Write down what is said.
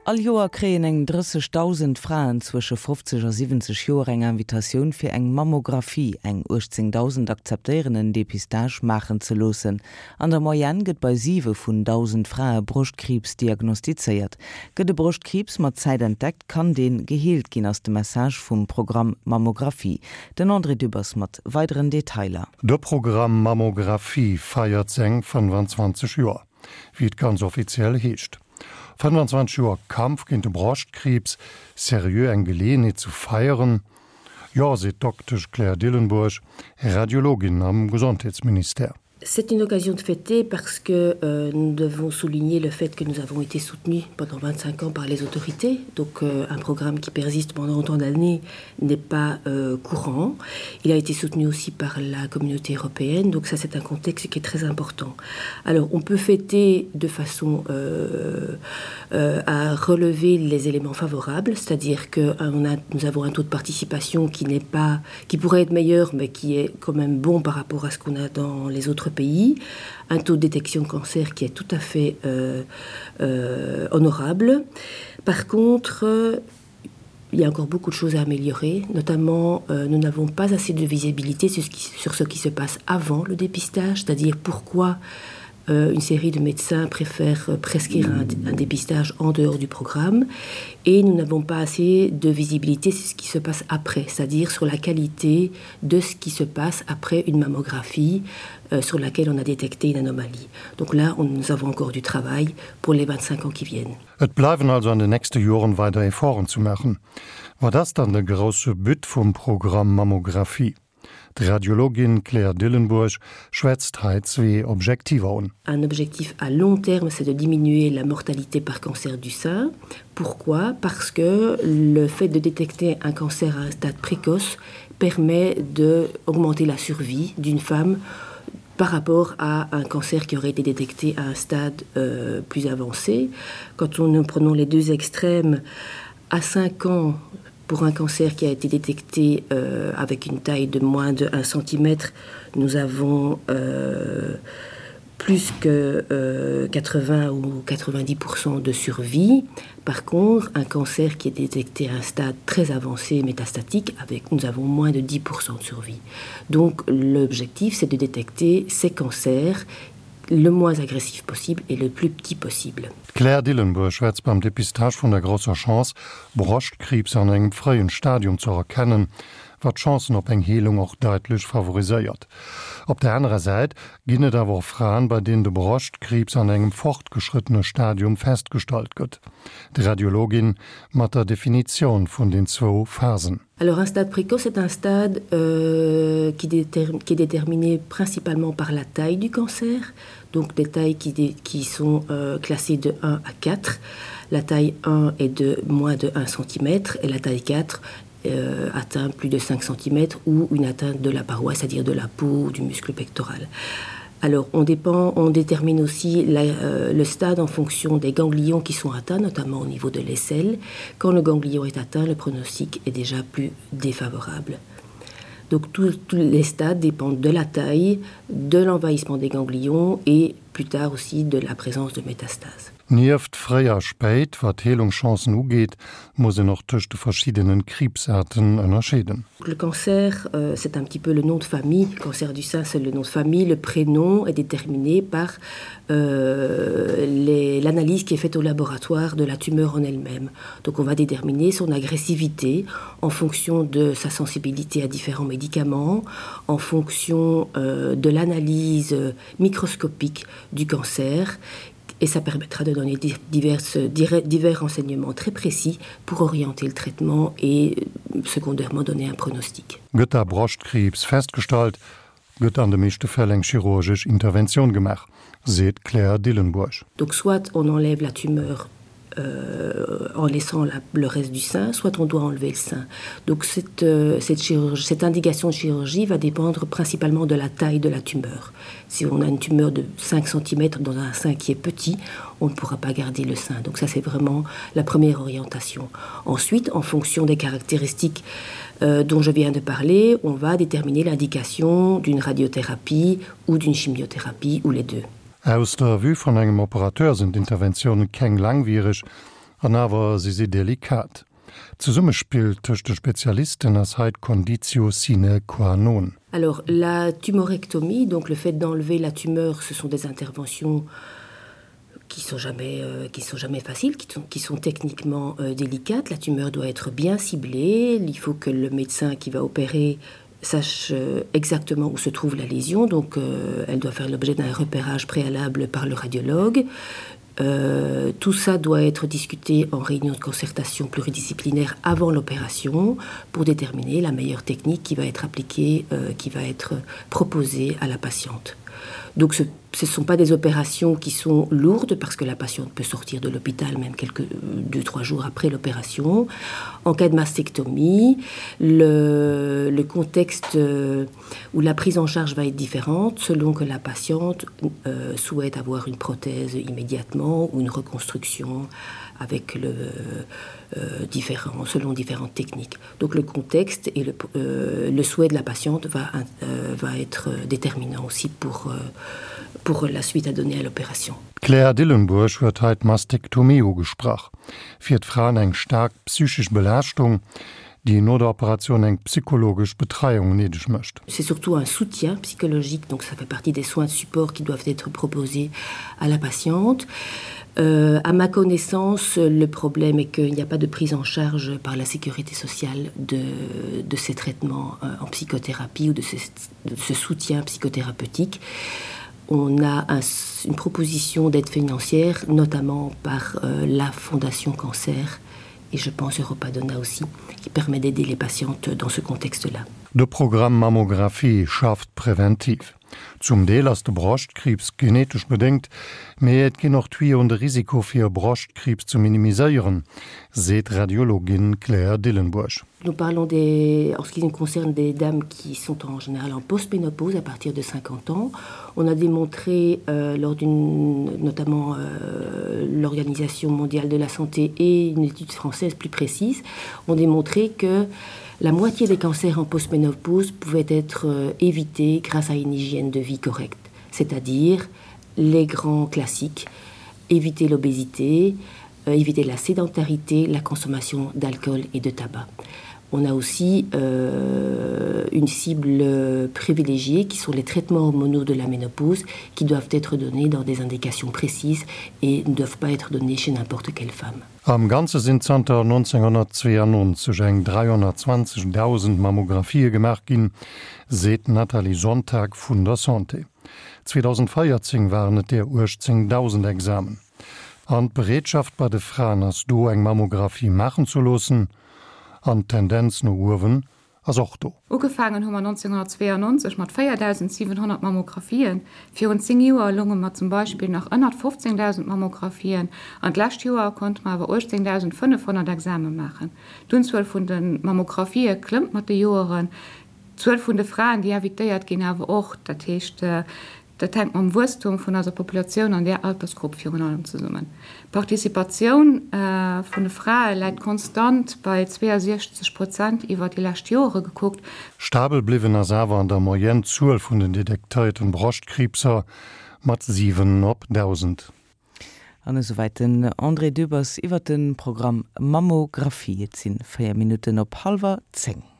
All Joer kréien eng 30.000 Fraen zwësche 50 a 70 Joer eng Invitatioun fir eng Mammographie. Eng 18.000 akzeptéieren en Depistage maachen ze loossen. An der Moyenne gëtt bei 7 vun 1.000 Frae Broschtkriibs diagnostizéiert. Gëtt e Broschtkriibs mat Zäit entdeckt, kann dee geheelt ginn, ass de Message vum Programm Mammographie. Den André Dübbers mat weideren Detailer. De Programm Mammographie feiert seng 25 Joer. Wéi et ganz offiziell heescht. 25 Joer Kampf géint de Broschtkriibs, seriö eng Geleeënheet zu feieren? Jo, seet d'Doktesch Claire Dillenburg, Radiologin am Gesondheetsministère. C'est une occasion de fêter parce que euh, nous devons souligner le fait que nous avons été soutenus pendant 25 ans par les autorités. Donc euh, un programme qui persiste pendant autant d'années n'est pas euh, courant. Il a été soutenu aussi par la communauté européenne, donc ça c'est un contexte qui est très important. Alors on peut fêter de façon euh, euh, à relever les éléments favorables, c'est-à-dire que euh, a, nous avons un taux de participation qui n'est pas qui pourrait être meilleur mais qui est quand même bon par rapport à ce qu'on a dans les autres pays, un taux de détection de cancer qui est tout à fait euh, euh, honorable. Par contre, euh, il y a encore beaucoup de choses à améliorer, notamment euh, nous n'avons pas assez de visibilité sur ce, qui, sur ce qui se passe avant le dépistage, c'est-à-dire pourquoi euh, une série de médecins préfèrent euh, prescrire un, un dépistage en dehors du programme et nous n'avons pas assez de visibilité sur ce qui se passe après, c'est-à-dire sur la qualité de ce qui se passe après une mammographie euh, sur laquelle on a détecté une anomalie. Donc là, on, nous avons encore du travail pour les 25 ans qui viennent. Et bleiwen also an den nächste Joren weider Efforten zu maachen. Wat ass dann de grousse But vum Programm Mammographie? D'Radiologin Claire Dillenburg schwätzt hei zwee Objektiver un. Un objectif à long terme, c'est de diminuer la mortalité par cancer du sein. Pourquoi? Parce que le fait de détecter un cancer à un stade précoce permet d'augmenter la survie d'une femme par rapport à un cancer qui aurait été détecté à un stade euh, plus avancé. Quand on, nous prenons les deux extrêmes, à 5 ans, pour un cancer qui a été détecté euh, avec une taille de moins de 1 cm, nous avons euh, plus que euh, 80 ou 90% de survie. Par contre, un cancer qui est détecté à un stade très avancé métastatique, avec, nous avons moins de 10% de survie. Donc l'objectif, c'est de détecter ces cancers le moins agressif possible et le plus petit possible. D'Claire Dillenburg schwätzt beim Dépistage vun der grousser Chance, Broschtkriibs an engem fréien Stadium ze erkennen, wat d'Chancen op eng Heelung och daitlech favoriséiert. Op der anerer Säit ginn et awer och Fraen, bei deenen de Broschtkriibs an engem fortgeschrëttene Stadium festgestallt gëtt. D'Radiologin mat der Definitioun vun den zwou Phasen. Alors un stade précoce est un stade euh, qui, qui est déterminé principalement par la taille du cancer, donc des tailles qui, qui sont euh, classées de 1 à 4. La taille 1 est de moins de 1 cm et la taille 4 euh, atteint plus de 5 cm ou une atteinte de la paroi, c'est-à-dire de la peau ou du muscle pectoral. Alors on dépend, on détermine aussi la, euh, le stade en fonction des ganglions qui sont atteints, notamment au niveau de l'aisselle. Quand le ganglion est atteint, le pronostic est déjà plus défavorable. Donc tous les stades dépendent de la taille, de l'envahissement des ganglions et plus tard aussi de la présence de métastases. Nieft fréi a spéit, wat d'Heelungschancen ugeet, muss een och tëscht de verschiddenen Kriibsaarten ënnerscheeden. Le cancer, c'est un petit peu le nom de famille, cancer du sein c'est le nom de famille, le prénom est déterminé par l'analyse qui est faite au laboratoire de la tumeur en elle-même. Donc on va déterminer son agressivité en fonction de sa sensibilité à différents médicaments, en fonction de l'analyse microscopique du cancer et ça permettra de donner diverses, divers renseignements très précis pour orienter le traitement et secondairement donner un pronostic. Gëtt da Broschtkriibs festgestallt, gëtt an de meeschte Fäll eng chirurgesch Interventioun gemaach, seet d'Claire Dillenburg. Donc soit on enlève la tumeur euh, en laissant la, le reste du sein, soit on doit enlever le sein. Donc cette, euh, cette, chirurgie, cette indication de chirurgie va dépendre principalement de la taille de la tumeur. Si on a une tumeur de 5 cm dans un sein qui est petit, on ne pourra pas garder le sein. Donc ça c'est vraiment la première orientation. Ensuite, en fonction des caractéristiques euh, dont je viens de parler, on va déterminer l'indication d'une radiothérapie ou d'une chimiothérapie ou les deux. Aus der Vue vun engem Operateur sinn d'Interventioune keng langwiereg. An awer si si delikat. D'Zesummespill tëscht de Spezialisten ass hei d'Conditio sine qua non. Alors la tumorectomie, donc le fait d'enlever la tumeur, ce sont des interventions qui sont jamais euh, qui sont jamais faciles, qui sont, qui sont techniquement euh, délicates. La tumeur doit être bien ciblée, il faut que le médecin qui va opérer sache euh, exactement où se trouve la lésion, donc euh, elle doit faire l'objet d'un repérage préalable par le radiologue. Euh, tout ça doit être discuté en réunion de concertation pluridisciplinaire avant l'opération pour déterminer la meilleure technique qui va être appliquée, euh, qui va être proposée à la patiente. Donc ce ce ne sont pas des opérations qui sont lourdes parce que la patiente peut sortir de l'hôpital même quelques deux trois jours après l'opération. En cas de mastectomie, le, le contexte euh, où la prise en charge va être différente selon que la patiente euh, souhaite avoir une prothèse immédiatement ou une reconstruction avec le euh, différent selon différentes techniques. Donc le contexte et le, euh, le souhait de la patiente va, euh, va être déterminant aussi pour, euh, pour la suite à donner à l'opération. D'Claire Dillenburg huet hei d'Mastektomie ugesprach. Fir d'Fraen eng staark psychesch Belaaschtung, déi no der Operatioun eng psychologesch Betreiung néideg mécht. C'est surtout un soutien psychologique, donc ça fait partie des soins de support qui doivent être proposés à la patiente. Euh, à ma connaissance, le problème est qu'il n'y a pas de prise en charge par la sécurité sociale de, de ces traitements euh, en psychothérapie ou de ce, de ce soutien psychothérapeutique. On a un, une proposition d'aide financière, notamment par euh, la Fondation Cancer et je pense Europadona aussi, qui permet d'aider les patientes dans ce contexte-là. De Programm Mammographie schafft präventiv. Zum Deel ass de Broschtkriibs genetesch bedéngt, mee et ginn och Tuyauxen de Risiko fir Broschtkriibs ze minimiséieren, seet d'Radiologin Claire Dillenburg. Nous parlons des, en ce qui nous concerne des dames qui sont en général en postménopause à partir de 50 ans. On a démontré euh, lors d'une notamment euh, l'Organisation mondiale de la santé et une étude française plus précise ont démontré que la moitié des cancers en postménopause pouvaient être euh, évités grâce à une hygiène de vie correcte, c'est-à-dire les grands classiques, éviter l'obésité, euh, éviter la sédentarité, la consommation d'alcool et de tabac. On a aussi euh, une cible privilégiée qui sont les traitements hormonaux de la ménopause qui doivent être donnés dans des indications précises et ne doivent pas être donnés chez n'importe quelle femme. Am Ganze sinn zanter 1992 eng 320.000 Mammographië gemaach ginn, seet d'Nathalie Sonntag vun der Santé. 2014 waren et der 18.000 Examen. An d'Bereetschaft bei de Fraen ass do, eng Mammographie maachen ze loossen. An d'Tendenz no uewen ass och do. Ugefaangen hu mer 1992 mat 4.700 Mammographien. Virun 10 Joer lounge mer zum Beispill nach ënnert 15.000 Mammographien an d'lescht Joer konnte mer awer 18.500 Exame maachen. D'Unzuel vun de Mammographië klëmmt mat de Joeren, d'Zuel vun de Fraen, déi invitéiert ginn, awer och. Dat heescht, Dat hänkt mam Wuesstum vun eiser Populatioun an där Altersgrupp virun allem zesummen. D'Participatioun vun de Frae läit konstant bei 62 Prozent iwwer déi lescht Joere gekuckt. Stabel bliwwen ass awer an der Moyenne d'Zuel vun den detektéierten Broschtkriibser mat 7 op 1.000. An esouwäit den André Dübbers iwwer de Programm Mammographie. Et si 4 Minutten op hallwer 10.